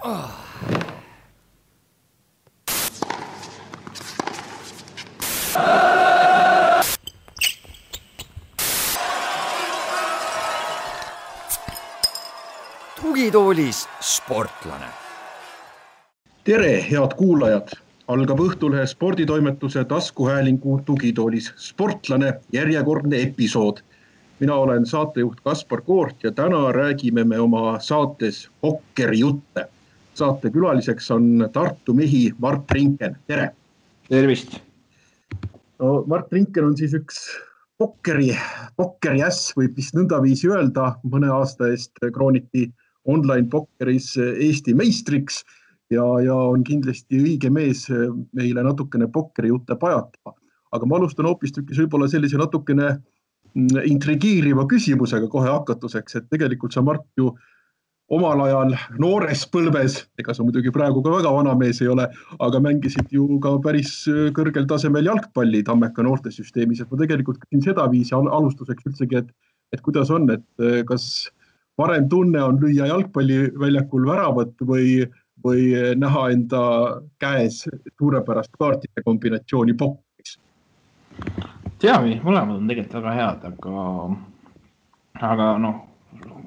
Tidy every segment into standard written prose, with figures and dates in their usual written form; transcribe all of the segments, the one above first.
Tugitoolis sportlane. Tere, head kuulajad! Algab Õhtulehe sporditoimetuse taskuhäälingu Tugitoolis sportlane järjekordne episood. Mina olen saatejuht Kaspar Koort ja täna räägime me oma saates pokkerijutte. Saate külaliseks on Tartu mehi Mart Rinken. Tere! Tervist! No, Mart Rinken on siis üks pokkeri äss, võib vist nõndaviisi öelda. Mõne aasta eest krooniti online pokkeris Eesti meistriks ja on kindlasti õige mees meile natukene pokkerijutte pajatama. Aga ma alustan hoopistükkis võib-olla sellise natukene intrigiiriva küsimusega kohe hakatuseks, et tegelikult sa, Mart, ju omal ajal noores põlves, ega sa muidugi praegu ka väga vana mees ei ole, aga mängisid ju ka päris kõrgel tasemel jalgpalli Tammeka noortesüsteemis. Et ma tegelikult küsin seda viisi alustuseks üldsegi, et kuidas on, et kas parem tunne on lüüa jalgpalliväljakul väravat või näha enda käes suurepärast kaartide kombinatsiooni pokkeris? Teami, mõlemad on tegelikult väga head, aga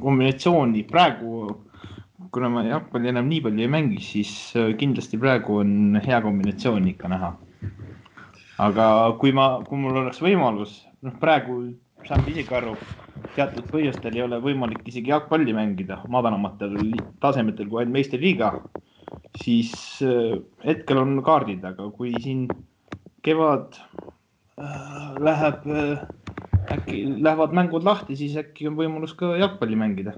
kombinatsiooni praegu, kuna ma jalgpalli enam nii palju ei mängi, siis kindlasti praegu on hea kombinatsioon ikka näha. Aga kui mul oleks võimalus, praegu saan isegi aru, teatud põhjustel ei ole võimalik isegi jalgpalli mängida madalamatel tasemetel kui ainult meistriliiga, siis hetkel on kaardid, aga kui siin kevad lähevad mängud lahti, siis äkki on võimalus ka jalgpalli mängida.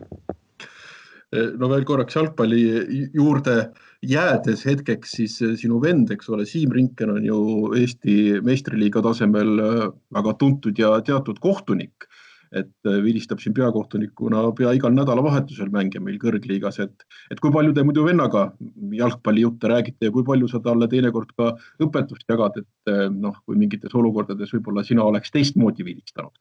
No veel korraks jalgpalli juurde jäädes hetkeks, siis sinu vend, eks ole, Siim Rinken on ju Eesti meistriliiga tasemel väga tuntud ja teatud kohtunik, et vilistab siin peakohtunikuna pea igal nädalavahetusel mänge meil kõrgliigas, et kui palju te muidu vennaga jalgpallijutte räägite ja kui palju sa talle teinekord ka õpetust jagad, et kui mingites olukordades võib-olla sina oleks teistmoodi vilistanud?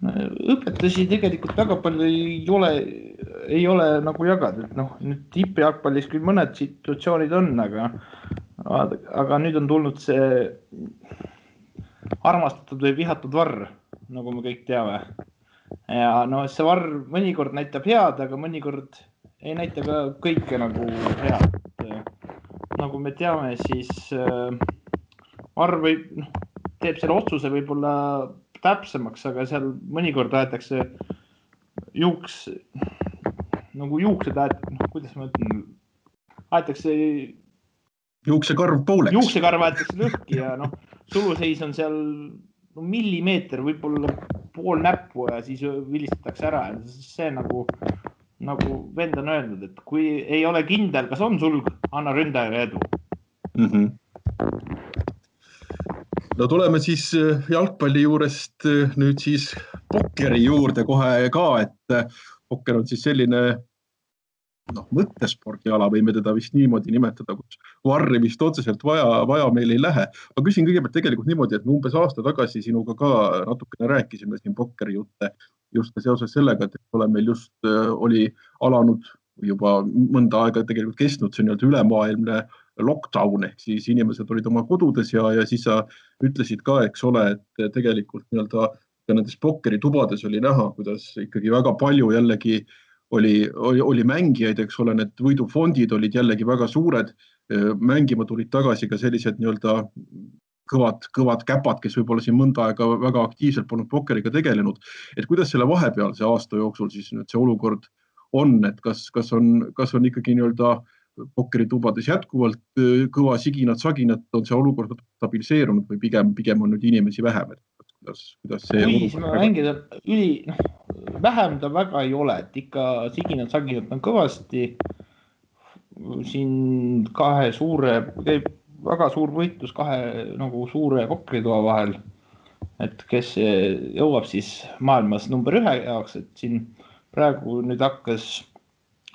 Õpetusi tegelikult väga palju ei ole nagu jagada, et nüüd tippjalgpallis küll mõned situatsioonid on, aga nüüd on tulnud see armastatud või vihatud varr, nagu me kõik teame. Ja see varr mõnikord näitab head, aga mõnikord ei näita ka kõike nagu head. Nagu me teame, siis varr teeb selle otsuse võib-olla täpsemaks, aga seal mõnikord aetakse juuksed, kuidas ma ütlen, aetakse juuksekarv pooleks. Juuksekarv aetakse lõhki ja suluseis on seal millimeeter, võib-olla pool näppu ja siis vilistatakse ära. See nagu vend on öelnud, et kui ei ole kindel, kas on sulg, anna ründajale edu. No tuleme siis jalgpalli juurest nüüd siis pokkeri juurde kohe ka, et pokker on siis selline mõttespordiala, võime teda vist niimoodi nimetada, kus varri vist otseselt vaja meil ei lähe. Ma küsin kõigepealt tegelikult niimoodi, et me umbes aasta tagasi sinuga ka natukene rääkisime siin pokkeri jutte just seoses sellega, et meil just oli alanud juba mõnda aega tegelikult kestnud see ülemaailmne lockdown, ehk siis inimesed olid oma kodudes ja siis sa ütlesid ka, eks ole, et tegelikult nendes pokkeri tubades oli näha, kuidas ikkagi väga palju jällegi oli mängijaid, eks ole, need võidufondid olid jällegi väga suured, mängima tulid tagasi ka sellised kõvad käpad, kes võib-olla siin mõnda aega väga aktiivselt polnud pokkeriga tegelenud. Et kuidas selle vahepealse aasta jooksul siis nüüd see olukord on, et kas on ikkagi pokkeritubades jätkuvalt kõva siginat-saginat, on see olukord stabiliseerunud või pigem on nüüd inimesi vähem? Kuidas see mängida vähem ta väga ei ole, et ikka siginat-saginat on kõvasti. Siin väga suur võitlus kahe suure pokkeritoa vahel, et kes jõuab siis maailmas number 1 jaoks, et siin praegu nüüd hakkas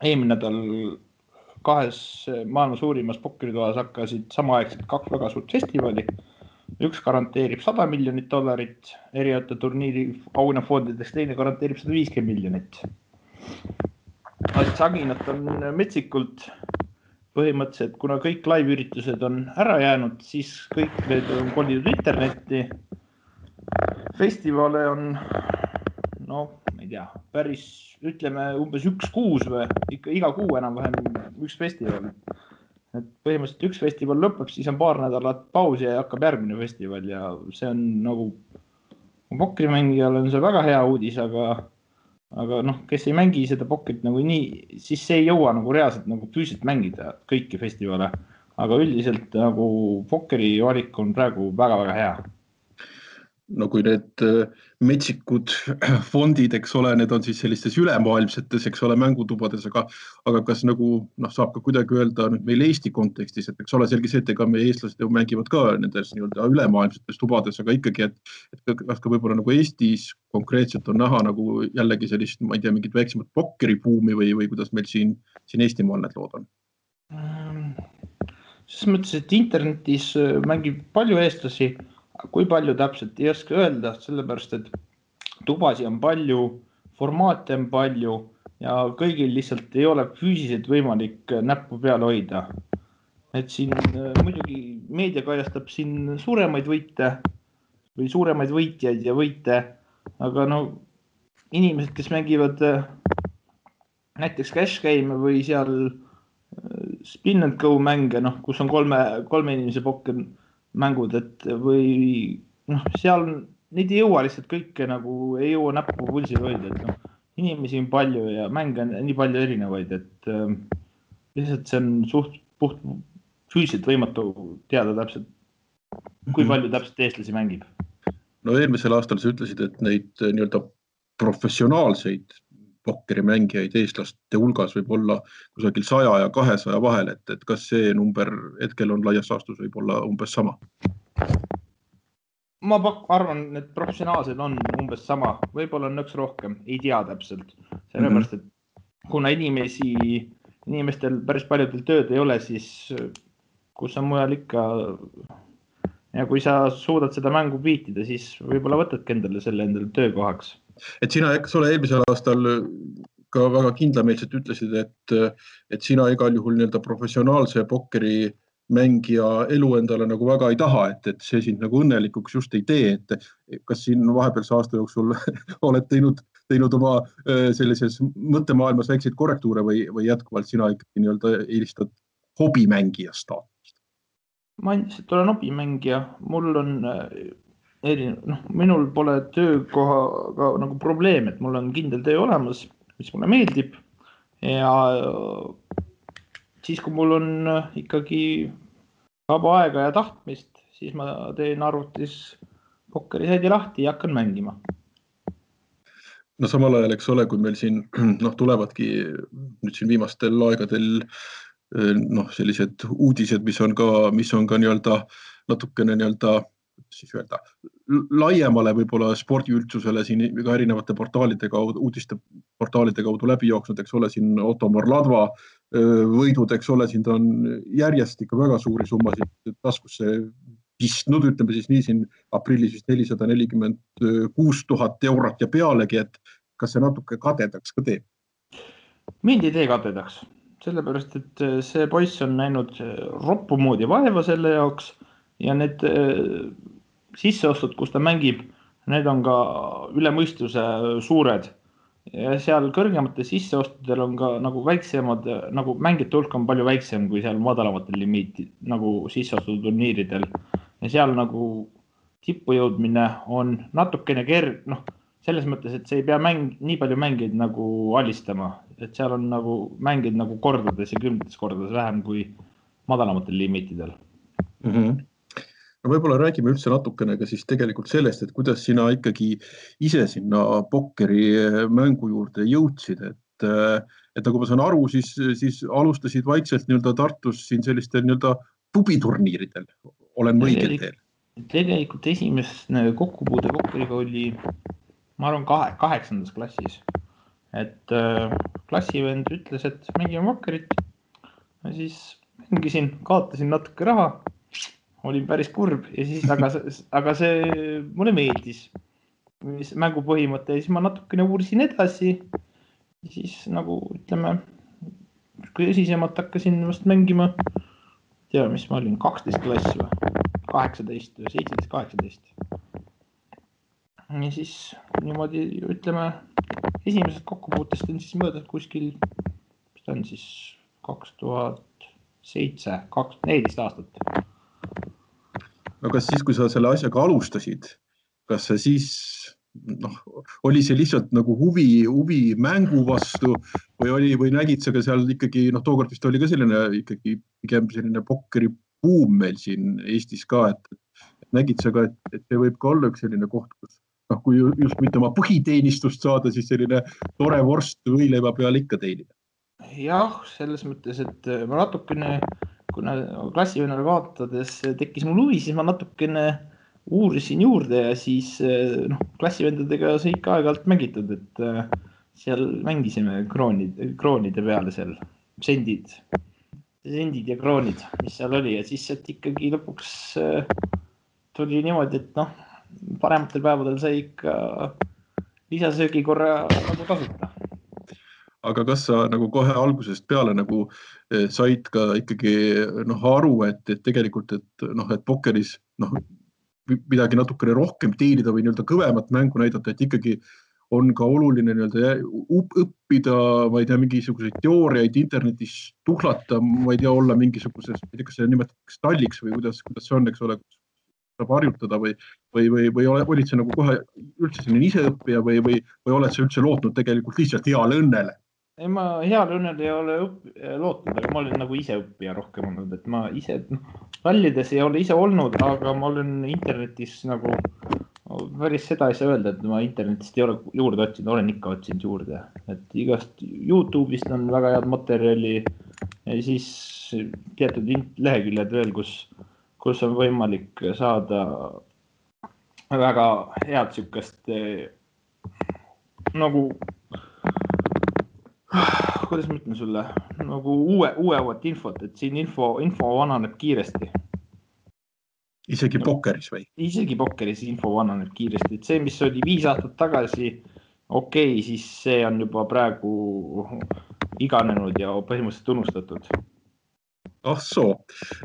eelmine nädal kahes maailma suurimas pokkeritoas hakkasid samaaegselt 2 väga suurt festivali. Üks garanteerib $100 miljonit erinevate turniiri auhinnafondidest, teine garanteerib $150 miljonit. Saginat on metsikult põhimõtteliselt, kuna kõik live-üritused on ära jäänud, siis kõik need on kolinud internetti. Festivale on, no, ma ei tea, päris, ütleme, umbes 1 kuus või iga kuu enam-vähem üks festival. Et põhimõtteliselt üks festival lõpeb, siis on paar nädalat pausi ja hakkab järgmine festival ja see on nagu pokrimängijal on see väga hea uudis, aga noh, kes ei mängi seda pokrit nagu nii, siis see ei jõua nagu reaalselt nagu füüsiliselt mängida kõiki festivale. Aga üldiselt nagu pokri valik on praegu väga-väga hea. No kui need metsikud fondid, eks ole, need on siis sellistes ülemaailmsetes, eks ole, mängutubades, aga kas nagu saab ka kuidagi öelda nüüd meil Eesti kontekstis, et eks ole selge see, et ega meie eestlased ju mängivad ka nendes nii-öelda ülemaailmsetes tubades, aga ikkagi, et kas ka võib-olla nagu Eestis konkreetselt on näha nagu jällegi sellist, ma ei tea, mingit väiksemat pokkeribuumi või kuidas meil siin Eestimaal need lood on? Selles mõttes, et internetis mängib palju eestlasi, kui palju täpselt ei oska öelda, sellepärast, et tubasi on palju, formaate on palju ja kõigil lihtsalt ei ole füüsiliselt võimalik näppu peale hoida. Et siin muidugi meedia kajastab siin suuremaid võite või suuremaid võitjaid ja võite, aga no inimesed, kes mängivad näiteks cash game või seal spin and go mänge, kus on kolme inimese pokker mängud, et või seal neid ei jõua lihtsalt kõike nagu ei jõua näppu pulsil hoida, et inimesi on palju ja mänge on nii palju erinevaid, et lihtsalt see on suht puht füüsiliselt võimatu teada täpselt, kui palju täpselt eestlasi mängib. No eelmisel aastal sa ütlesid, et neid nii-öelda professionaalseid pokkerimängijaid eestlaste hulgas võib olla kusagil 100 ja 200 vahel, et kas see number hetkel on laias laastus võib olla umbes sama? Ma arvan, et professionaalsed on umbes sama, võib-olla on nõks rohkem, ei tea täpselt. Sellepärast, et kuna inimestel päris paljudel tööd ei ole, siis kus on mujal ikka ja kui sa suudad seda mängu viitida, siis võib-olla võtadki endale töökohaks. Et sina, eks ole, eelmisel aastal ka väga kindlameelselt ütlesid, et sina igal juhul nii-öelda professionaalse pokkeri mängija elu endale nagu väga ei taha, et see sind nagu õnnelikuks just ei tee, et kas siin vahepealse aasta jooksul oled teinud oma sellises mõttemaailmas väikseid korrektuure või jätkuvalt sina ikkagi nii-öelda eelistad hobimängija staatust? Ma endiselt olen hobimängija, mul on minul pole töökohaga nagu probleem, et mul on kindel töö olemas, mis mulle meeldib ja siis, kui mul on ikkagi vaba aega ja tahtmist, siis ma teen arvutis pokkerisaidi lahti ja hakkan mängima. No samal ajal, eks ole, kui meil siin tulevadki nüüd siin viimastel aegadel sellised uudised, mis on ka nii-öelda natukene nii-öelda siis öelda, laiemale võib-olla spordiüldsusele siin ka erinevate portaalide kaudu, uudisteportaalide kaudu läbi jooksnud, eks ole, siin Ottomar Ladva võidud, eks ole, siin ta on järjest ikka väga suuri summasid taskusse pistnud, ütleme siis nii siin aprillis 446 000 eurot ja pealegi, et kas see natuke kadedaks ka teeb? Mind ei tee kadedaks, sellepärast, et see poiss on näinud roppu moodi vaeva selle jaoks ja need sisseostud, kus ta mängib, need on ka üle mõistuse suured. Ja seal kõrgemate sisseostudel on ka nagu väiksemad, nagu mängijate hulk on palju väiksem kui seal madalamatel limiiti, nagu sisseostuturniiridel. Ja seal nagu tippu jõudmine on natukene selles mõttes, et see ei pea nii palju mängijaid nagu alistama. Et seal on nagu mängijaid nagu kordades ja 10 kordades vähem kui madalamatel limiitidel. No võib-olla räägime üldse natukene ka siis tegelikult sellest, et kuidas sina ikkagi ise sinna pokkeri mängu juurde jõudsid, et nagu ma saan aru, siis alustasid vaikselt nii-öelda Tartus siin sellistel nii-öelda pubiturniiridel, olen õigel teel? Tegelikult esimene kokkupuude pokkeriga oli, ma arvan, 8. klassis, et klassivend ütles, et mängime pokkerit ja siis mängisin, kaotasin natuke raha, olin päris kurb ja siis, aga see mulle meeldis mängu põhimõte ja siis ma natukene uurisin edasi ja siis nagu ütleme tõsisemalt hakkasin vast mängima, mis ma olin, 12 klass või 18 või 17-18. Ja siis niimoodi, ütleme, esimesed kokkupuutest on siis mõõdud kuskil, mis ta on siis 2007, 14 aastat. No kas siis, kui sa selle asjaga alustasid, kas see siis oli see lihtsalt nagu huvi mängu vastu või nägid sa ka seal ikkagi, tookord vist oli ka selline ikkagi pigem selline pokkeri buum meil siin Eestis ka, et nägid sa ka, et see võib ka olla üks selline koht, kus kui just mitte oma põhiteenistust saada, siis selline tore vorst võileiva peal ikka teenida. Jah, selles mõttes, et ma natukene, kuna klassivennale kaotades tekkis mul huvi, siis ma natukene uurisin juurde ja siis klassivendadega sai ikka aeg-ajalt mängitud, et seal mängisime kroonide peale seal, sendid ja kroonid, mis seal oli ja siis sealt ikkagi lõpuks tuli niimoodi, et parematel päevadel sai ikka lisasöögi korra nagu tasuta. Aga kas sa nagu kohe algusest peale nagu said ka ikkagi aru, et tegelikult, et pokkeris midagi natukene rohkem teenida või kõvemat mängu näidata, et ikkagi on ka oluline õppida, ma ei tea, mingisuguseid teooriaid internetis tuhlata, ma ei tea, olla mingisuguses, ma ei tea, kas see nimetatakse stalliks või kuidas see on, eks ole, saab harjutada või olid sa nagu kohe üldse selline iseõppija või oled sa üldse lootnud tegelikult lihtsalt heale õnnele? Ei, ma heale õnnele ei ole lootnud, aga ma olen nagu iseõppija rohkem olnud, et ma ise rallides ei ole ise olnud, aga ma olen internetis nagu päris seda ei saa öelda, et ma internetist ei ole juurde otsinud, olen ikka otsinud juurde, et igast YouTube'ist on väga head materjali ja siis teatud leheküljed veel, kus on võimalik saada väga head sükast nagu, kuidas ma ütlen sulle, nagu uuemat infot, et siin info vananeb kiiresti. Isegi pokkeris või? Isegi pokkeris info vananeb kiiresti, et see, mis oli 5 aastat tagasi, okei, siis see on juba praegu iganenud ja põhimõtteliselt unustatud. Ah soo.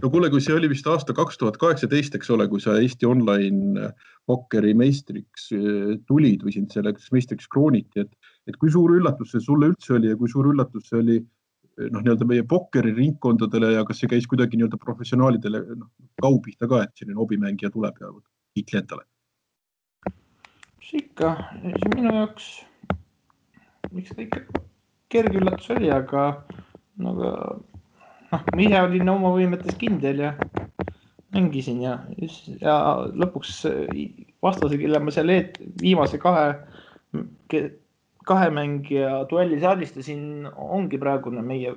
No kuule, kui see oli vist aasta 2018, eks ole, kui sa Eesti online pokkeri meistriks tulid või sind selleks meistriks krooniti, et kui suur üllatus see sulle üldse oli ja kui suur üllatus see oli meie pokkeri ringkondadele ja kas see käis kuidagi professionaalidele kaupihta ka, et selline hobimängija tuleb ja kiitli endale? See ikka, see minu jaoks, miks ta ikka kerge üllatus oli, aga ma ise olin oma võimetes kindel ja mängisin ja lõpuks vastase, kelle ma seal viimase kahe mängija duellis alistasin, ongi praegune meie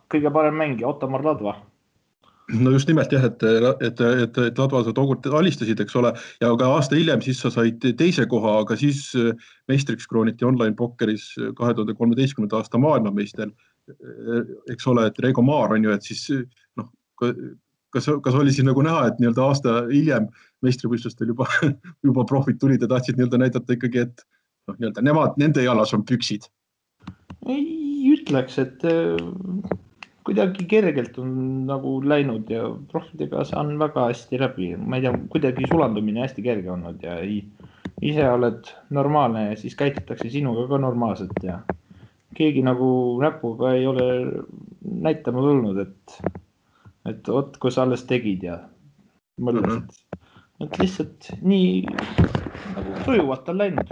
kõige parem mängija, Ottomar Ladva. No just nimelt jah, et Ladva sa tookord alistasid, eks ole, ja ka aasta hiljem siis sa said teise koha, aga siis meistriks krooniti online pokkeris 2013. aasta maailmameister, eks ole, et Reigo Maar on ju, et siis kas oli siis nagu näha, et aasta hiljem meistrivõistlustel juba profid tulid ja tahtsid näidata ikkagi, et nende jalas on püksid? Ei ütleks, et kuidagi kergelt on nagu läinud ja profidega saan väga hästi läbi. Ma ei tea, kuidagi sulandumine hästi kerge olnud ja ise oled normaalne ja siis käitutakse sinuga ka normaalselt ja keegi nagu näpuga ei ole näitama tulnud, et kui sa alles tegid ja mõtlesid, et lihtsalt nii nagu sujuvalt on läinud.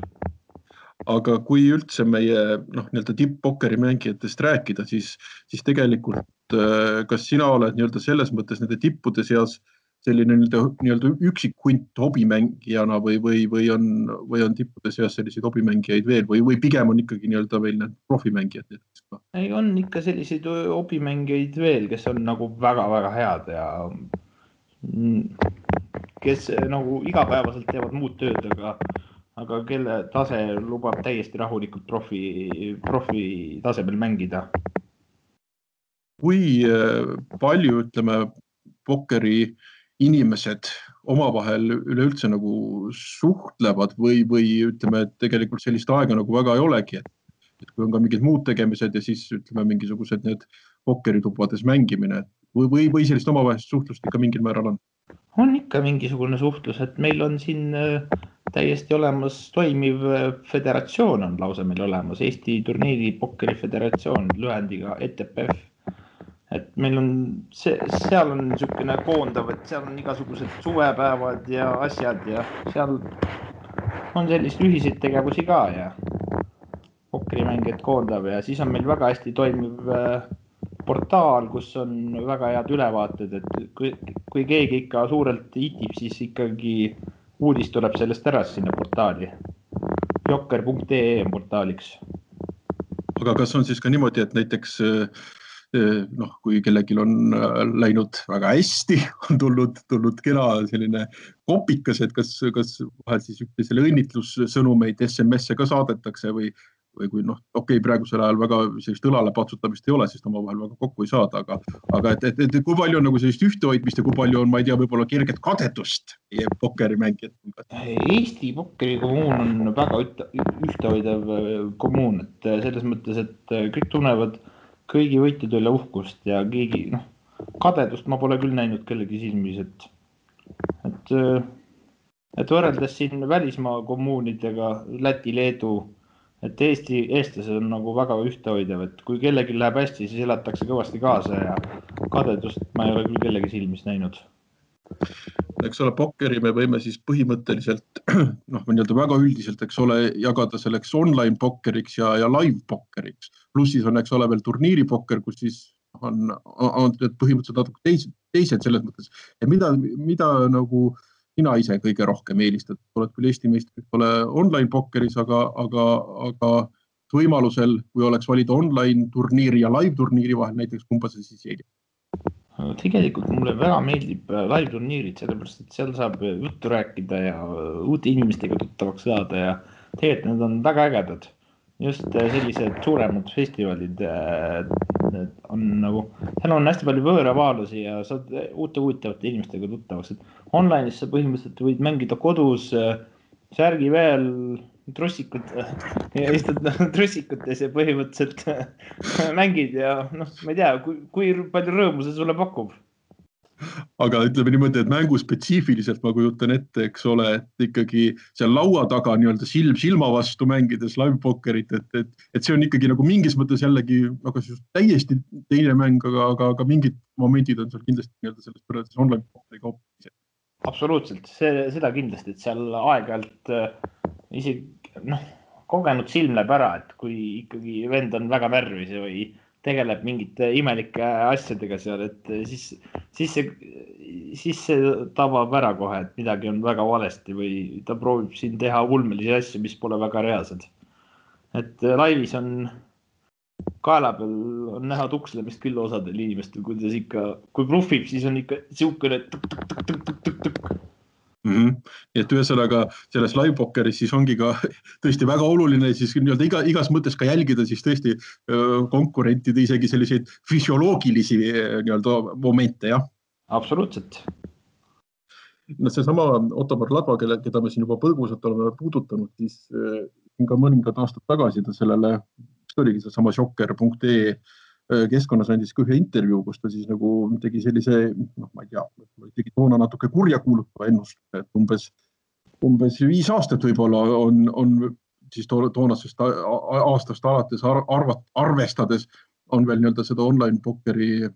Aga kui üldse meie tipp-pokkeri mängijatest rääkida, siis tegelikult kas sina oled selles mõttes nende tippude seas selline üksikhunt hobimängijana või on tippude seas selliseid hobimängijaid veel või pigem on ikkagi veel need profimängijad? Ei, on ikka selliseid hobimängijaid veel, kes on nagu väga-väga head ja kes nagu igapäevaselt teevad muud tööd, aga kelle tase lubab täiesti rahulikult profi tasemel mängida. Kui palju, ütleme, pokkeri inimesed omavahel üleüldse nagu suhtlevad või ütleme, et tegelikult sellist aega nagu väga ei olegi, et kui on ka mingid muud tegemised ja siis ütleme mingisugused need pokkeritubades mängimine või sellist omavahelist suhtlust ikka mingil määral on? On ikka mingisugune suhtlus, et meil on siin täiesti olemas toimiv föderatsioon on lausa meil olemas, Eesti turniiri pokkeri föderatsioon lühendiga ETPF. Et meil on, seal on niisugune koondav, et seal on igasugused suvepäevad ja asjad ja seal on sellist ühiseid tegevusi ka ja pokkerimängijad koondav ja siis on meil väga hästi toimiv portaal, kus on väga head ülevaated, et kui keegi ikka suurelt itib, siis ikkagi uudis tuleb sellest ära sinna portaali. Jokker.ee on portaaliks. Aga kas on siis ka niimoodi, et näiteks kui kellelgi on läinud väga hästi, on tulnud kena selline kopikas, et kas vahel siis üksteisele õnnitlussõnumeid SMS-e ka saadetakse või kui praegusel ajal väga sellist õlale patsutamist ei ole, siis omavahel väga kokku ei saada, aga et kui palju on nagu sellist ühtehoidmist ja kui palju on, ma ei tea, võib-olla kerget kadedust pokkerimängijat? Eesti pokkerikommuun on väga ühtehoidev kommuun, et selles mõttes, et kõik tunnevad kõigi võitjad üle uhkust ja keegi, kadedust ma pole küll näinud kellegi silmis, et võrreldes siin välismaa kommuunidega, Läti, Leedu, et eestlased on nagu väga ühtehoidev, et kui kellegi läheb hästi, siis elatakse kõvasti kaasa ja kadedust ma ei ole küll kellegi silmis näinud. Eks ole, pokkeri me võime siis põhimõtteliselt, väga üldiselt, eks ole, jagada selleks online pokkeriks ja live pokkeriks. Pluss siis on, eks ole, veel turniiri pokker, kus siis on põhimõtteliselt natuke teised selles mõttes. Ja mida nagu sina ise kõige rohkem eelistad? Oled küll Eesti meistrid, ole online pokkeris, aga võimalusel, kui oleks valida online turniiri ja live turniiri vahel, näiteks kumba sa siis eelistad? Tegelikult mulle väga meeldib live turniirid, sellepärast, et seal saab juttu rääkida ja uute inimestega tuttavaks saada ja tegelikult need on väga ägedad. Just sellised suuremad festivalid on nagu, seal on hästi palju võõravaalusi ja saad uute huvitavate inimestega tuttavaks. Online'is sa põhimõtteliselt võid mängida kodus särgi veel trussikud ja istud trussikutes ja põhimõtteliselt mängid ja ma ei tea, kui palju rõõmu see sulle pakub. Aga ütleme niimoodi, et mängu spetsiifiliselt ma kujutan ette, eks ole, et ikkagi seal laua taga nii-öelda silma vastu mängides live pokkerit, et see on ikkagi nagu mingis mõttes jällegi täiesti teine mäng, aga mingid momendid on seal kindlasti nii-öelda sellest võrreldes online pokkeri kaupa. Absoluutselt, seda kindlasti, et seal aeg-ajalt isegi kogenud silm läheb ära, et kui ikkagi vend on väga närvis või tegeleb mingite imelike asjadega seal, et siis see tabab ära kohe, et midagi on väga valesti või ta proovib siin teha ulmelisi asju, mis pole väga reaalsed. Et laivis on kaela peal on näha tukslemist küll osadel inimestel, kuidas ikka, kui bluffib, siis on ikka siukene tuk-tuk-tuk-tuk-tuk-tuk. Et ühesõnaga selles live pokkeris siis ongi ka tõesti väga oluline siis nii-öelda igas mõttes ka jälgida siis tõesti konkurentide isegi selliseid füsioloogilisi nii-öelda momente, jah? Absoluutselt. Seesama Ottomar Ladva, keda me siin juba põgusalt oleme puudutanud, siis ka mõningad aastad tagasi ta sellele, mis oligi seesama Jokker.ee keskkonnas andis ka ühe intervjuu, kus ta siis nagu tegi sellise, ma ei tea, tegi toona natuke kurja kuulutava ennustuse, et umbes 5 aastat võib-olla on siis toonasest aastast alates arvestades on veel nii-öelda seda online pokkeri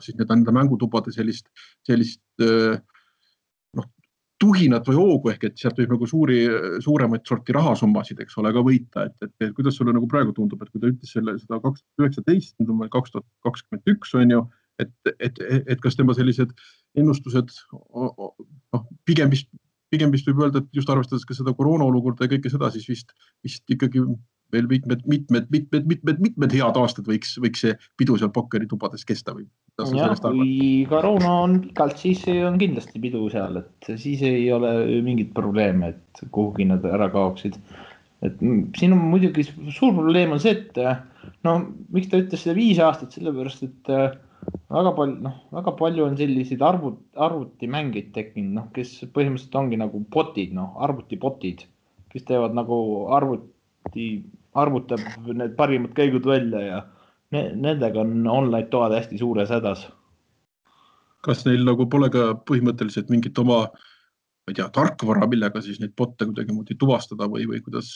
siis nende mängutubade sellist tuhinat või hoogu ehk, et sealt võib nagu suuremaid sorti rahasummasid, eks ole, ka võita, et kuidas sulle nagu praegu tundub, et kui ta ütles seda 2019, nüüd on meil 2021 on ju, et kas tema sellised ennustused pigem vist võib öelda, et just arvestades ka seda koroona olukorda ja kõike seda, siis vist ikkagi veel mitmed head aastad võiks see pidu seal pokkeri tubades kesta või? Ja, kui koroona on pikalt, siis on kindlasti pidu seal, et siis ei ole mingit probleeme, et kuhugi nad ära kaoksid. Et siin on muidugi suur probleem on see, et miks ta ütles seda 5 aastat, sellepärast, et väga palju on selliseid arvutimängeid tekkinud, kes põhimõtteliselt ongi nagu botid, arvutibotid, kes teevad nagu arvutab need parimad käigud välja ja nendega on online toad hästi suures hädas. Kas neil nagu pole ka põhimõtteliselt mingit oma, ma ei tea, tarkvara, millega siis neid botte kuidagi moodi tuvastada või kuidas?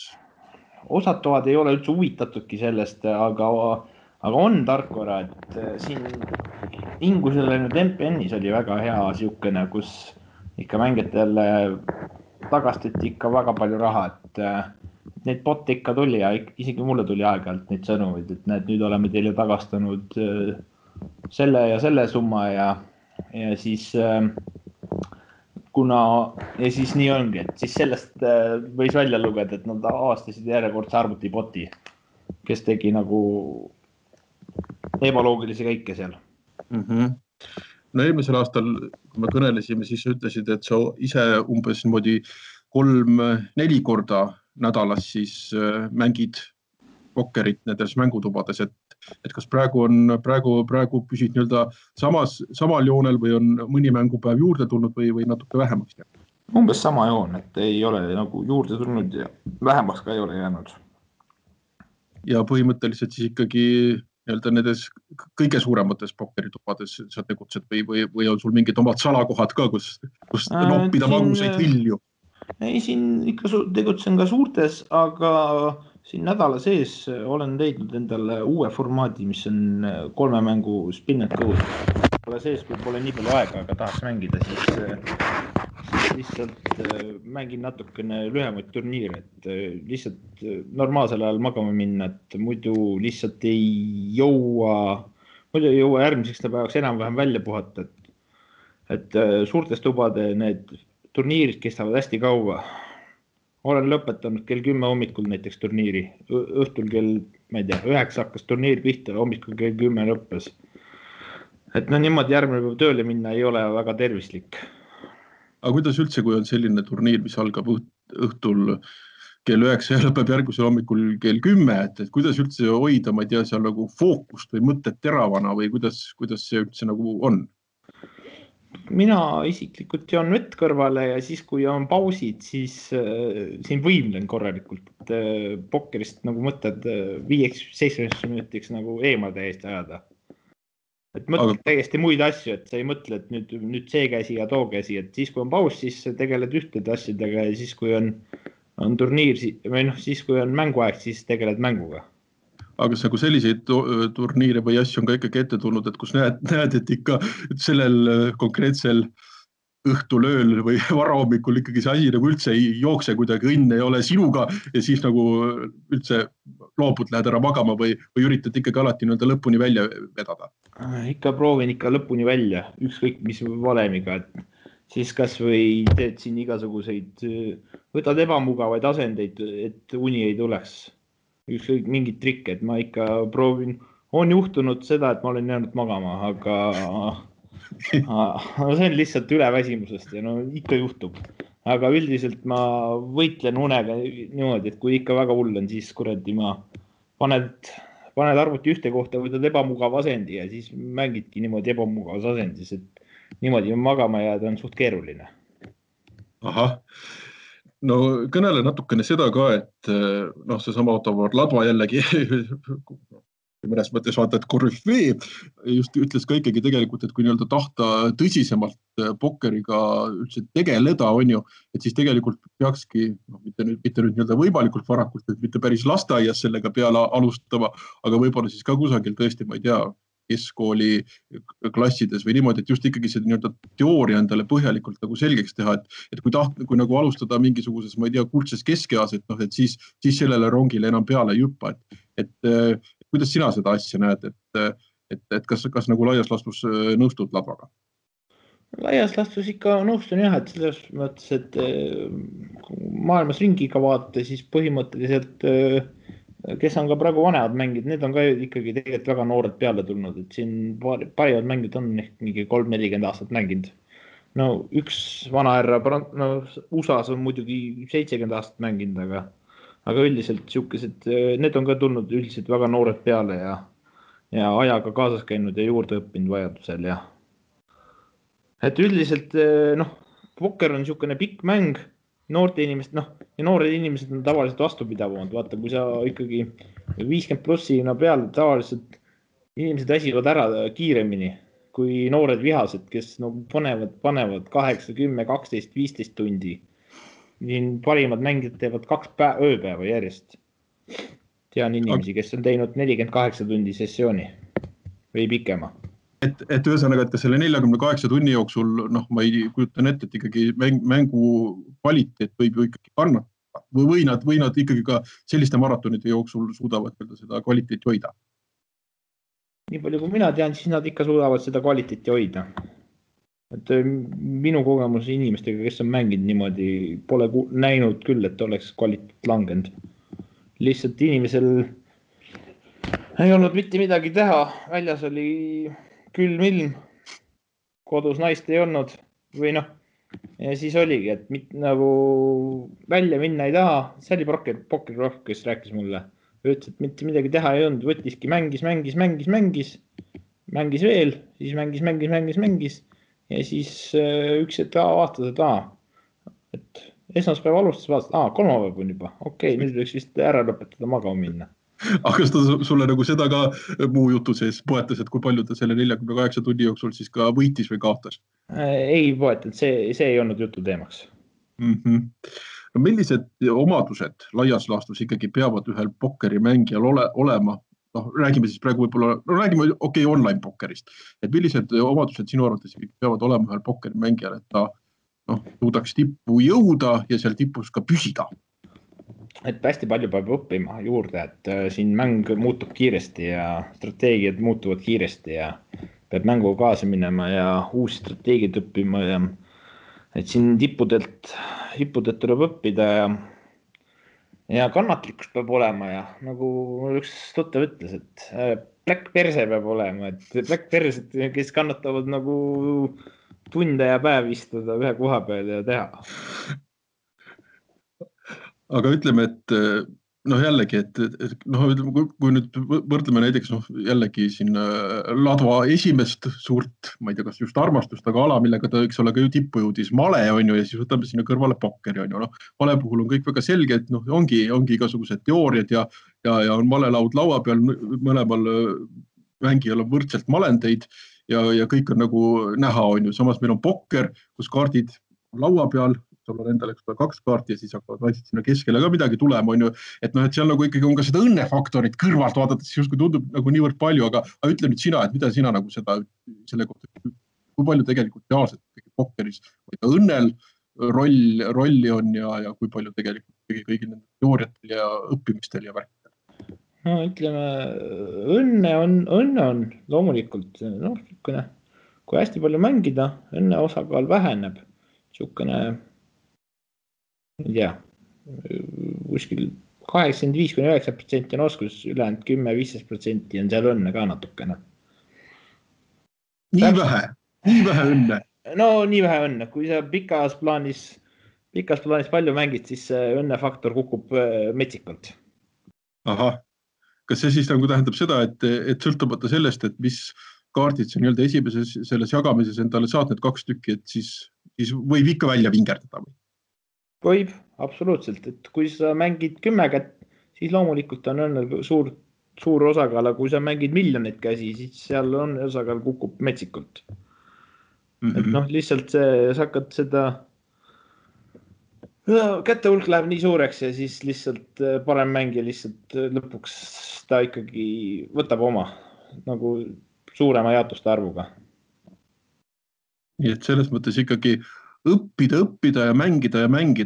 Osad toad ei ole üldse huvitatudki sellest, aga on tarkvara, et siin Ingusele nüüd MPN-is oli väga hea siukene, kus ikka mängijatele tagastati ikka väga palju raha, et neid botte ikka tuli ja isegi mulle tuli aeg-ajalt neid sõnumeid, et näed, nüüd oleme teile tagastanud selle ja selle summa ja siis ja siis nii ongi, et siis sellest võis välja lugeda, et nad avastasid järjekordse arvutiboti, kes tegi nagu ebaloogilisi käike seal. No eelmisel aastal, kui me kõnelesime, siis ütlesid, et sa ise umbes 3-4 korda nädalas siis mängid pokkerit nendes mängutubades, et kas praegu püsid samal joonel või on mõni mängupäev juurde tulnud või natuke vähemaks jäänud? Umbes sama joon, et ei ole nagu juurde tulnud ja vähemaks ka ei ole jäänud. Ja põhimõtteliselt siis ikkagi nendes kõige suuremates pokkeritubades sa tegutsed või on sul mingid omad salakohad ka, kus noppida magusaid vilju? Ei, siin ikka tegutsen ka suurtes, aga siin nädala sees olen leidnud endale uue formaadi, mis on 3 mängu spin and go. Pole sees, kui pole nii palju aega, aga tahaks mängida, siis lihtsalt mängin natukene lühemaid turniire, et lihtsalt normaalsel ajal magama minna, et muidu lihtsalt ei jõua järgmiseks päevaks enam-vähem välja puhata, et suurtes tubade need turniirid kestavad hästi kaua. Olen lõpetanud kell 10 hommikul näiteks turniiri. Õhtul kell, ma ei tea, 9 hakkas turniir pihta, hommikul kell 10 lõppes. Et niimoodi järgmine päev tööle minna ei ole väga tervislik. Aga kuidas üldse, kui on selline turniir, mis algab õhtul kell 9 ja lõpeb järgmisel hommikul kell 10, et kuidas üldse hoida, ma ei tea, seal nagu fookust või mõtted teravana või kuidas see üldse nagu on? Mina isiklikult joon vett kõrvale ja siis, kui on pausid, siis siin võimlen korralikult, et pokkerist nagu mõtled 5-7 minutiks nagu eemale täiesti ajada. Et mõtled täiesti muid asju, et sa ei mõtle, et nüüd see käsi ja too käsi, et siis, kui on paus, siis tegeled ühtede asjadega ja siis, kui on turniir või siis, kui on mänguaeg, siis tegeled mänguga. Aga kas nagu selliseid turniire või asju on ka ikkagi ette tulnud, et kus näed, et ikka sellel konkreetsel õhtul ööl või varahommikul ikkagi see asi nagu üldse ei jookse kuidagi, õnn ei ole sinuga ja siis nagu üldse loobud, lähed ära magama või üritad ikkagi alati lõpuni välja vedada? Ikka proovin ikka lõpuni välja, ükskõik mis valemiga, et siis kas või teed siin igasuguseid, võtad ebamugavaid asendeid, et uni ei tuleks. Ükskõik mingid trikke, et ma ikka proovin, on juhtunud seda, et ma olen jäänud magama, aga see on lihtsalt üleväsimusest ja ikka juhtub. Aga üldiselt ma võitlen unega niimoodi, et kui ikka väga hull on, siis kuradi ma paned arvuti ühte kohta, võtad ebamugav asendi ja siis mängidki niimoodi ebamugavas asendis, et niimoodi magama jääda on suht keeruline. Ahah. No kõnele natukene seda ka, et seesama Otto Ladva jällegi mõnes mõttes vaata, et korüfee just ütles ka ikkagi tegelikult, et kui tahta tõsisemalt pokkeriga üldse tegeleda, on ju, et siis tegelikult peakski, mitte nüüd võimalikult varakult, et mitte päris lasteaias sellega peale alustama, aga võib-olla siis ka kusagil tõesti, ma ei tea, keskkooli klassides või niimoodi, et just ikkagi see teooria endale põhjalikult nagu selgeks teha, et kui nagu alustada mingisuguses, ma ei tea, kuldses keskeas, et siis sellele rongile enam peale ei hüppa, et kuidas sina seda asja näed, et kas nagu laias laastus nõustud Ladvaga? Laias laastus ikka nõustun jah, et selles mõttes, et maailmas ringiga vaadata, siis põhimõtteliselt kes on ka praegu vanemad mängid, need on ka ikkagi tegelikult väga noored peale tulnud, et siin parimad mängid on ehk mingi 3-40 aastat mänginud. No üks vanahärra USA-s on muidugi 70 aastat mänginud, aga üldiselt siukesed, need on ka tulnud üldiselt väga noored peale ja ajaga kaasas käinud ja juurde õppinud vajadusel ja et üldiselt pokker on siukene pikk mäng, noorte inimesed, ja noored inimesed on tavaliselt vastupidavamad. Vaata, kui sa ikkagi 50 plussina peale tavaliselt inimesed väsivad ära kiiremini kui noored vihased, kes panevad 8, 10, 12, 15 tundi. Siin parimad mängijad teevad 2 ööpäeva järjest. Tean inimesi, kes on teinud 48 tundi sessiooni või pikema. Et ühesõnaga, et ka selle 48 tunni jooksul, ma ei kujutan ette, et ikkagi mängu kvaliteet võib ju ikkagi kannatada või nad ikkagi ka selliste maratonide jooksul suudavad seda kvaliteeti hoida? Nii palju kui mina tean, siis nad ikka suudavad seda kvaliteeti hoida. Et minu kogemus inimestega, kes on mänginud niimoodi, pole näinud küll, et oleks kvaliteet langenud. Lihtsalt inimesel ei olnud mitte midagi teha. Väljas oli külm ilm, kodus naist ei olnud või ja siis oligi, et nagu välja minna ei taha. See oli Pokker, kes rääkis mulle. Ütles, et mitte midagi teha ei olnud, võttiski, mängis veel, siis mängis ja siis üks hetk vaatas, et esmaspäev alustas, vaatas, kolmapäev on juba, okei, nüüd võiks vist ära lõpetada magama minna. Aga kas ta sulle nagu seda ka muu jutu sees poetas, et kui palju ta selle 48 tunni jooksul siis ka võitis või kaotas? Ei poetanud, see ei olnud jutu teemaks. No millised omadused laias laastus ikkagi peavad ühel pokkeri mängijal olema? Räägime siis praegu võib-olla, räägime online pokkerist. Et millised omadused sinu arvates peavad olema ühel pokkeri mängijal, et ta suudaks tippu jõuda ja seal tipus ka püsida? Et hästi palju peab õppima juurde, et siin mäng muutub kiiresti ja strateegiad muutuvad kiiresti ja peab mängu kaasa minema ja uusi strateegiad õppima ja et siin tippudelt tuleb õppida ja kannatlikkus peab olema ja nagu üks tuttav ütles, et Black Perse peab olema, et Black Persed, kes kannatavad nagu tunde ja päev istuda ühe koha peal ja teha. Aga ütleme, et jällegi, kui nüüd võrdleme näiteks jällegi siin Ladva esimest suurt, ma ei tea, kas just armastust, aga ala, millega ta võiks olla ka ju tippu jõudis, male on ju, ja siis võtame sinna kõrvale pokkeri on ju. Male puhul on kõik väga selge, et ongi igasugused teooriad ja on malelaud laua peal, mõlemal mängijal on võrdselt malendeid ja kõik on nagu näha on ju. Samas meil on pokker, kus kaardid laua peal, sul on endale 2 kaarti ja siis hakkavad naised sinna keskele ka midagi tulema, on ju. Et seal nagu ikkagi on ka seda õnnefaktorit kõrvalt vaadates, justkui tundub nagu niivõrd palju, aga ütle nüüd sina, et mida sina nagu selle kohta, kui palju tegelikult reaalselt pokkeris õnnel rolli on ja kui palju tegelikult kõigi nende teooriatel ja õppimistel ja värkidel? No ütleme, õnne on loomulikult, kui hästi palju mängida, õnne osakaal väheneb, niisugune ei tea, kuskil 85-90% on oskus, ülejäänud 10-15% on seal õnne ka natukene. Nii vähe õnne? No nii vähe õnne, kui sa pikas plaanis palju mängid, siis õnnefaktor kukub metsikult. Ahah, kas see siis nagu tähendab seda, et sõltumata sellest, et mis kaardid sa nii-öelda esimeses selles jagamises endale saad need 2 tükki, et siis võib ikka välja vingerdada või? Võib, absoluutselt, et kui sa mängid 10 kätt, siis loomulikult on õnnel suur osakaal, aga kui sa mängid miljoneid käsi, siis seal on osakaal kukub metsikult. Et lihtsalt sa hakkad seda kätte hulk läheb nii suureks ja siis lihtsalt parem mängija lihtsalt lõpuks ta ikkagi võtab oma nagu suurema jaotuste arvuga. Nii et selles mõttes ikkagi õppida ja mängida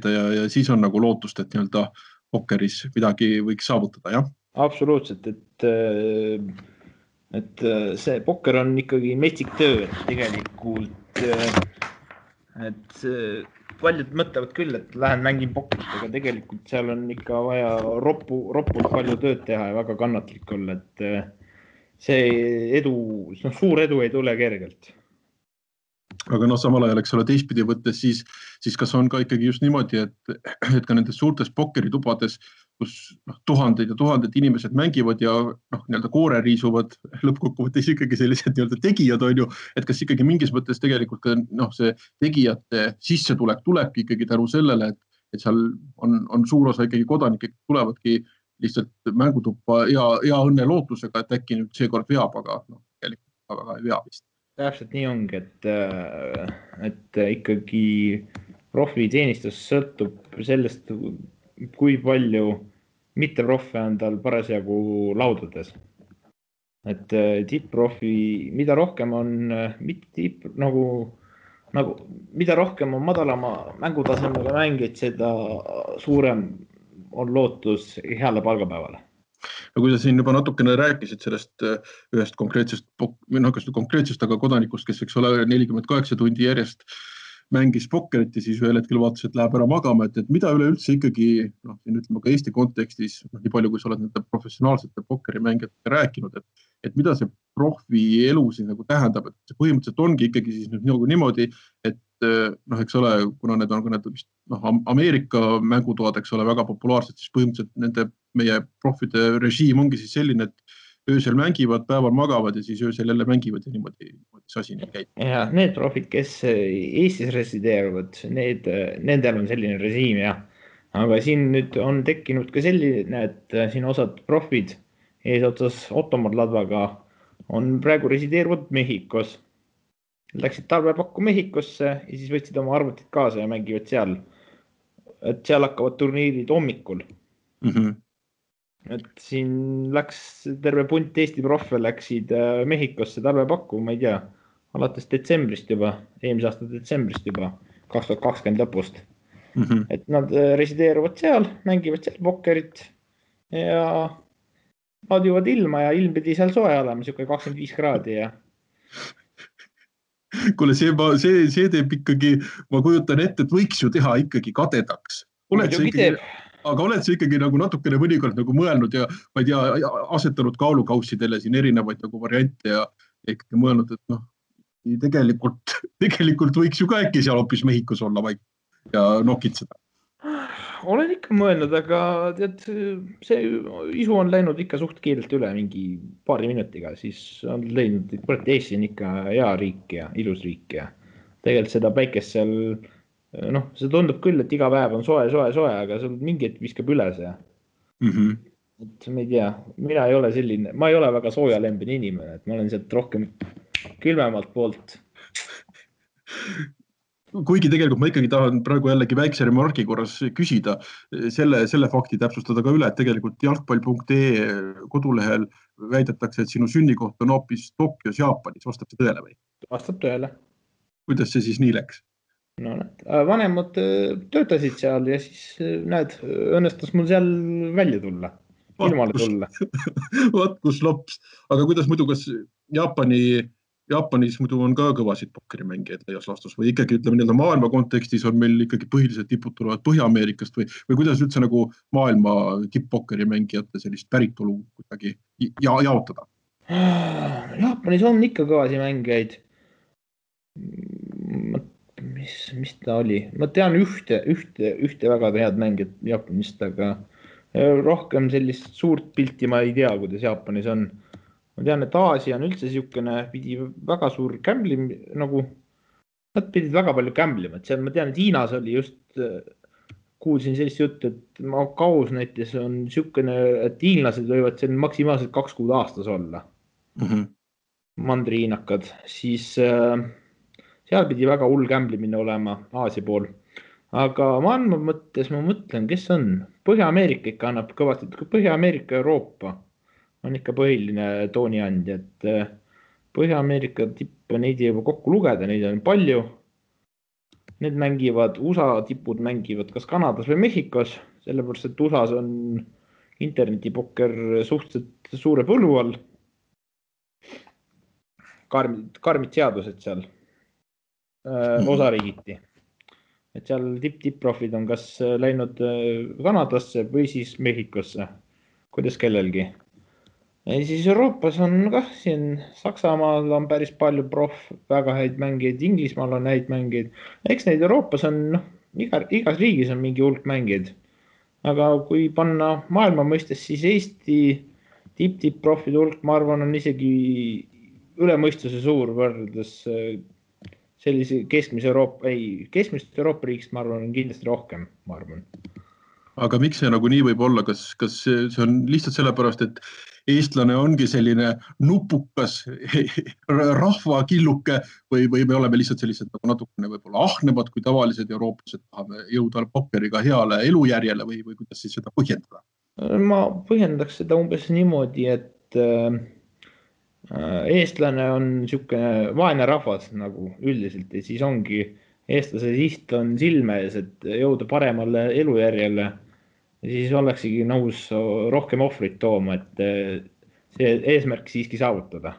ja siis on nagu lootust, et nii-öelda pokkeris midagi võiks saavutada, jah? Absoluutselt, et see pokker on ikkagi metsik töö, et tegelikult et paljud mõtlevad küll, et lähen mängin pokkerit, aga tegelikult seal on ikka vaja ropult palju tööd teha ja väga kannatlik olla, et see suur edu ei tule kergelt. Aga samal ajal, eks ole, teistpidi võttes, siis kas on ka ikkagi just niimoodi, et ka nendes suurtes pokkeritubades, kus tuhanded ja tuhanded inimesed mängivad ja nii-öelda koore riisuvad lõppkokkuvõttes ikkagi sellised nii-öelda tegijad on ju, et kas ikkagi mingis mõttes tegelikult ka see tegijate sissetulek tulebki ikkagi tänu sellele, et seal on suur osa ikkagi kodanikke, tulevadki lihtsalt mängutuppa hea õnne lootusega, et äkki nüüd seekord veab, aga tegelikult väga ei vea vist. Täpselt nii ongi, et ikkagi profiteenistus sõltub sellest, kui palju mitteprofi on tal parasjagu laudades. Et tipp-profi, mida rohkem on mida rohkem on madalama mängutasemega mängid, seda suurem on lootus heale palgapäevale. No kui sa siin juba natukene rääkisid sellest ühest konkreetsest, aga kodanikust, kes võiks olla 48 tundi järjest mängis pokkerit ja siis ühel hetkel vaatas, et läheb ära magama, et mida üleüldse ikkagi, siin ütleme ka Eesti kontekstis, nii palju kui sa oled nende professionaalsete pokkerimängijatega rääkinud, et mida see profi elu siis nagu tähendab, et see põhimõtteliselt ongi ikkagi siis nüüd nagu niimoodi, et eks ole, kuna need on vist Ameerika mängutoad, eks ole, väga populaarsed, siis põhimõtteliselt meie profide režiim ongi siis selline, et öösel mängivad, päeval magavad ja siis öösel jälle mängivad ja niimoodi see asi nii käib. Ja need profid, kes Eestis resideeruvad, nendel on selline režiim, jah. Aga siin nüüd on tekkinud ka selline, et siin osad profid eesotsas Ottomar Ladvaga on praegu resideeruvad Mehhikos. Läksid talvepakku Mehhikosse ja siis võtsid oma arvutid kaasa ja mängivad seal. Et seal hakkavad turniirid hommikul. Et siin läks terve punt Eesti profe läksid Mehhikosse talvepakku, ma ei tea, alates detsembrist juba, eelmise aasta detsembrist juba, 2020 lõpust. Et nad resideeruvad seal, mängivad seal pokkerit ja laadivad ilma ja ilm pidi seal soe olema, 25 kraadi ja... Kuule, see teeb ikkagi, ma kujutan ette, et võiks ju teha ikkagi kadedaks. Aga oled sa ikkagi nagu natukene mõnikord nagu mõelnud ja ma ei tea, asetanud kaalukaussidele siin erinevaid nagu variante ja ikkagi mõelnud, et tegelikult võiks ju ka äkki seal hoopis Mehhikos olla vaid ja nokitseda. Olen ikka mõelnud, aga tead, see isu on läinud ikka suht kiirelt üle mingi paari minutiga, siis on leidnud, et Eesti on ikka hea riik ja ilus riik ja tegelikult seda päikest seal see tundub küll, et iga päev on soe, aga sul mingi hetk viskab üle see. Et ma ei tea, mina ei ole selline, ma ei ole väga soojalembene inimene, et ma olen sealt rohkem külmemalt poolt. Kuigi tegelikult ma ikkagi tahan praegu jällegi väikse remargi korras küsida, selle fakti täpsustada ka üle, et tegelikult jalgpall.ee kodulehel väidetakse, et sinu sünnikoht on hoopis Tokyos, Jaapanis. Vastab see tõele või? Vastab tõele. Kuidas see siis nii läks? Vanemad töötasid seal ja siis õnnestus mul seal välja tulla, ilmale tulla. Vaat kus lops. Aga kuidas muidu, kas Jaapanis muidu on ka kõvasid pokkerimängijaid laias laastus või ikkagi ütleme maailma kontekstis on meil ikkagi põhilised tipud tulevad Põhja-Ameerikast või kuidas üldse nagu maailma tipp-pokkerimängijate sellist päritolu kuidagi jaotada? Jaapanis on ikka kõvasi mängijaid. Mis ta oli? Ma tean ühte väga head mängijat Jaapanist, aga rohkem sellist suurt pilti ma ei tea, kuidas Jaapanis on. Ma tean, et Aasia on üldse siukene, pidi väga suur gamblim, nad pidid väga palju gamblima, et seal ma tean, et Hiinas oli just, kuulsin sellist juttu, et Makaus näiteks on siukene, et hiinlased võivad seal maksimaalselt 2 kuud aastas olla. Mandriinakad, siis seal pidi väga hull gamblimine olema Aasia pool. Aga maailma mõttes ma mõtlen, kes on? Põhja-Ameerika ikka annab kõvasti, Põhja-Ameerika ja Euroopa on ikka põhiline tooniandja, et Põhja-Ameerika tippe neid ei juba kokku lugeda, neid on palju. Need mängivad, USA tipud mängivad kas Kanadas või Mehhikos, sellepärast, et USAs on internetipokker suhteliselt suure põllu all. Karmid seadused seal. Osariigiti. Et seal tipp-profid on kas läinud Kanadasse või siis Mehhikosse, kuidas kellelgi. Ja siis Euroopas on ka siin Saksamaal on päris palju väga häid mängijaid, Inglismaal on häid mängijaid. Eks neid Euroopas on, igas riigis on mingi hulk mängijaid. Aga kui panna maailma mõistes, siis Eesti tipp-profide hulk, ma arvan, on isegi üle mõistuse suur võrdes sellise keskmist Euroopa riigist, ma arvan, on kindlasti rohkem, ma arvan. Aga miks see nagu nii võib olla? Kas see on lihtsalt sellepärast, et eestlane ongi selline nupukas rahvakilluke või me oleme lihtsalt sellised nagu natukene võib-olla ahnemad kui tavalised eurooplased, tahame jõuda pokkeriga heale elujärjele või kuidas siis seda põhjendada? Ma põhjendaks seda umbes niimoodi, et eestlane on niisugune vaene rahvas nagu üldiselt ja siis ongi eestlase siht on silme ees, et jõuda paremale elujärjele ja siis oleksigi nõus rohkem ohvrit tooma, et see eesmärk siiski saavutada.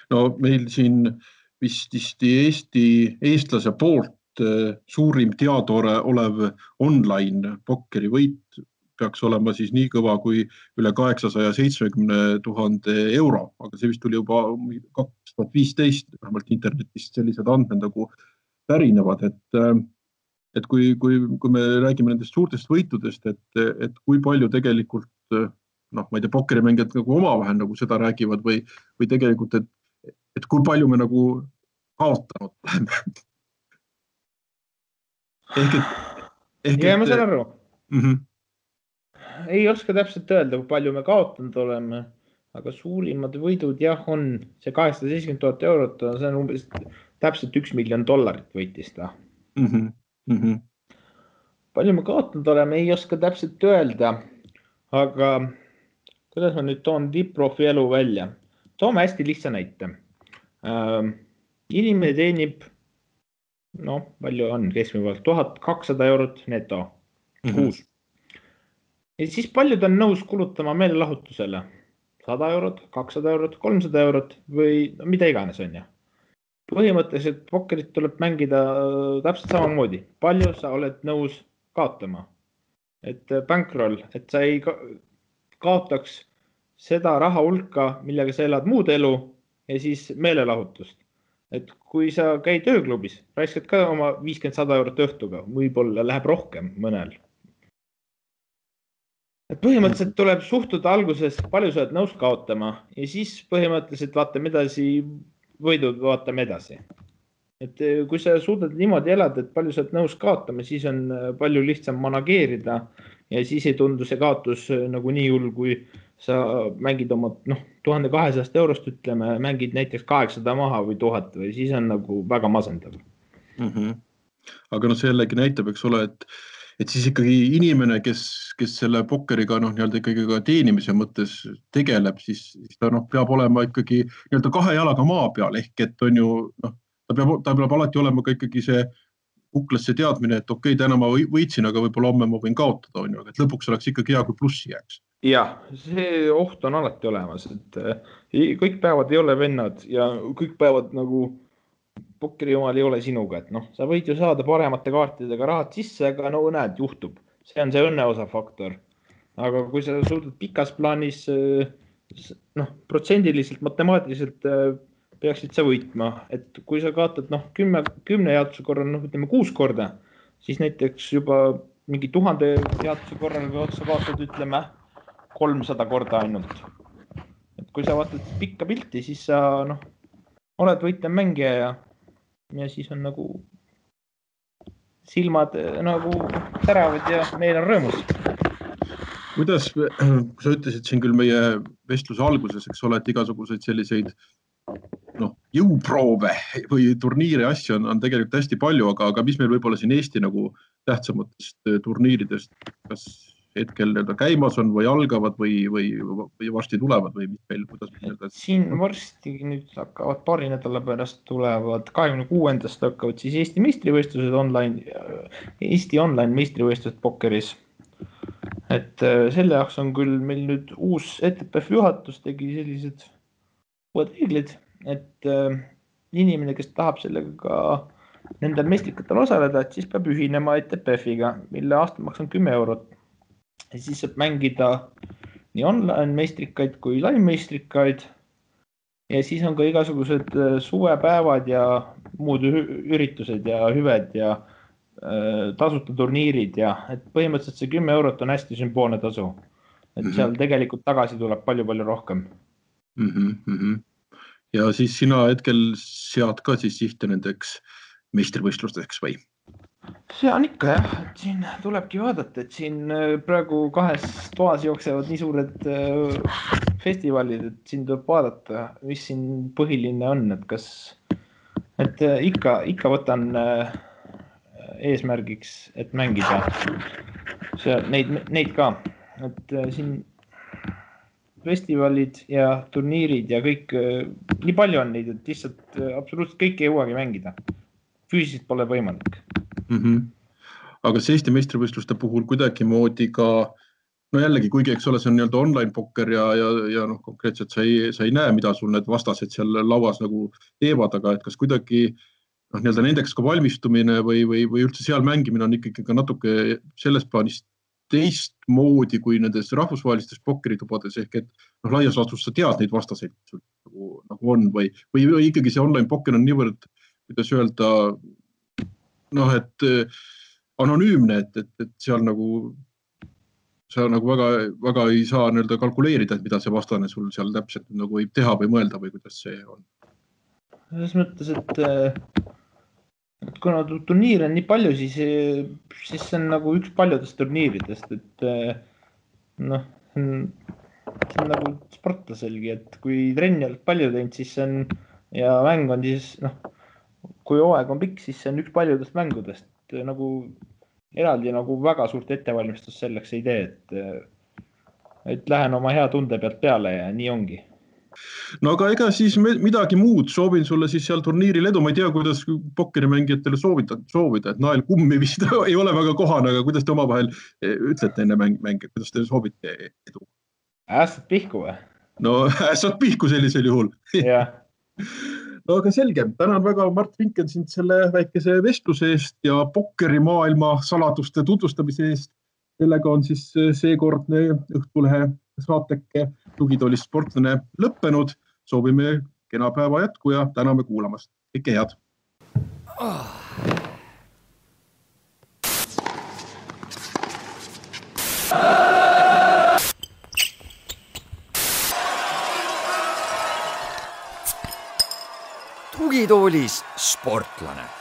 No meil siin vist eestlase poolt suurim teada olev online pokkeri võit peaks olema siis nii kõva kui üle 870 000 euro, aga see vist tuli juba 2015, vähemalt internetist sellised andmed nagu pärinevad, et kui me räägime nendest suurtest võitudest, et kui palju tegelikult, ma ei tea, pokkerimängijad nagu omavahel nagu seda räägivad või tegelikult, et kui palju me nagu kaotanud oleme. Ja ma saan aru. Ei oska täpselt öelda, kui palju me kaotanud oleme, aga suurimad võidud jah on see 870 000 eurot, see on umbes täpselt $1 miljon võitis ta. Palju me kaotanud oleme, ei oska täpselt öelda, aga kuidas ma nüüd toon tipp-profi elu välja? Toome hästi lihtsa näite. Inimene teenib, palju on keskmine pealt, 1200 eurot neto kuus. Ja siis paljud on nõus kulutama meelelahutusele 100 eurot, 200 eurot, 300 eurot või mida iganes on ja. Põhimõtteliselt pokkerit tuleb mängida täpselt samamoodi. Palju sa oled nõus kaotama? Et bankroll, et sa ei kaotaks seda raha hulka, millega sa elad muud elu ja siis meelelahutust. Et kui sa käid ööklubis, raiskad ka oma 50-100 eurot õhtuga, võib-olla läheb rohkem mõnel. Et põhimõtteliselt tuleb suhtuda alguses, palju sa oled nõus kaotama ja siis põhimõtteliselt vaatame edasi, võidud vaatame edasi. Et kui sa suudad niimoodi elada, et palju sa oled nõus kaotama, siis on palju lihtsam manageerida ja siis ei tundu see kaotus nagu nii hull, kui sa mängid oma 1200 eurost, ütleme, mängid näiteks 800 maha või 1000 või siis on nagu väga masendav. Aga see jällegi näitab, eks ole, et siis ikkagi inimene, kes selle pokkeriga ikkagi ka teenimise mõttes tegeleb, siis ta peab olema ikkagi kahe jalaga maa peal, ehk et on ju, ta peab alati olema ka ikkagi see kuklasse teadmine, et okei, täna ma võitsin, aga võib-olla homme ma võin kaotada, on ju, aga et lõpuks oleks ikkagi hea, kui plussi jääks. Jah, see oht on alati olemas, et kõik päevad ei ole vennad ja kõik päevad nagu pokkeri omal ei ole sinuga, et sa võid ju saada paremate kaartidega rahad sisse, aga näed, juhtub. See on see õnneosa faktor. Aga kui sa suudad pikas plaanis, protsendiliselt, matemaatiliselt peaksid sa võitma, et kui sa kaotad 10 jaotuse korral, ütleme 6 korda, siis näiteks juba mingi 1000 jaotuse korral või otsa kaotad, ütleme 300 korda ainult. Et kui sa vaatad pikka pilti, siis sa oled võitlev mängija ja siis on nagu silmad nagu teravad ja meil on rõõmus. Kuidas, kui sa ütlesid siin küll meie vestluse alguses, eks ole, et igasuguseid selliseid jõuproove või turniire asju on tegelikult hästi palju, aga mis meil võib-olla siin Eesti nagu tähtsamatest turniiridest, kas hetkel käimas on või algavad või varsti tulevad või mis meil, kuidas meil Siin varsti nüüd hakkavad paari nädala pärast tulevad 26. hakkavad siis Eesti meistrivõistlused Eesti online meistrivõistlused pokkeris. Et selle jaoks on küll meil nüüd uus ETPF juhatus tegi sellised uued reeglid, et inimene, kes tahab sellega ka nendel meistrikatel osaleda, et siis peab ühinema ETPF-iga, mille aastamaks on 10 eurot. Ja siis saab mängida nii online meistrikaid kui live meistrikaid ja siis on ka igasugused suvepäevad ja muud üritused ja hüved ja tasuta turniirid ja et põhimõtteliselt see 10 eurot on hästi sümboolne tasu. Et seal tegelikult tagasi tuleb palju rohkem. Ja siis sina hetkel sead ka siis sihte nendeks meistrivõistlusteks või? see on ikka jah, et siin tulebki vaadata, et siin praegu 2 toas jooksevad nii suured festivalid, et siin tuleb vaadata, mis siin põhiline on, et kas, et ikka võtan eesmärgiks, et mängida neid ka, et siin festivalid ja turniirid ja kõik, nii palju on neid, et lihtsalt absoluutselt kõik ei jõuagi mängida. Füüsiliselt pole võimalik. Aga kas Eesti meistrivõistluste puhul kuidagi moodi ka, no jällegi, kuigi eks ole, see on nii-öelda online pokker ja konkreetselt sa ei näe, mida sul need vastased seal lauas nagu teevad, aga et kas kuidagi nii-öelda nendeks ka valmistumine või üldse seal mängimine on ikkagi ka natuke selles plaanis teistmoodi kui nendes rahvusvahelistes pokkeritubades ehk et laias laastus sa tead neid vastaseid nagu on või ikkagi see online pokker on niivõrd, kuidas öelda, et anonüümne, et seal nagu sa nagu väga ei saa nii-öelda kalkuleerida, et mida see vastane sul seal täpselt nagu võib teha või mõelda või kuidas see on? Selles mõttes, et kuna turniir on nii palju, siis see on nagu üks paljudest turniiridest, et see on nagu sportlaselgi, et kui trenni oled palju teinud, siis see on ja mäng on siis, kui hooaeg on pikk, siis see on üks paljudest mängudest, nagu eraldi nagu väga suurt ettevalmistust selleks ei tee, et lähen oma hea tunde pealt peale ja nii ongi. No aga ega siis midagi muud, soovin sulle siis seal turniiril edu, ma ei tea, kuidas pokkerimängijatele soovida, et nael kummi vist ei ole väga kohane, aga kuidas te omavahel ütlete enne mänge, kuidas te soovite edu? Ässad pihku või? No ässad pihku sellisel juhul. Jah. No aga selge, tänan väga Mart Vinken sind selle väikese vestluse eest ja pokkerimaailma saladuste tutvustamise eest. Sellega on siis seekordne Õhtulehe saateke Tugitoolist sportlane lõppenud. Soovime kena päeva jätku ja täname kuulamast. Kõike head! Tugitoolis sportlane.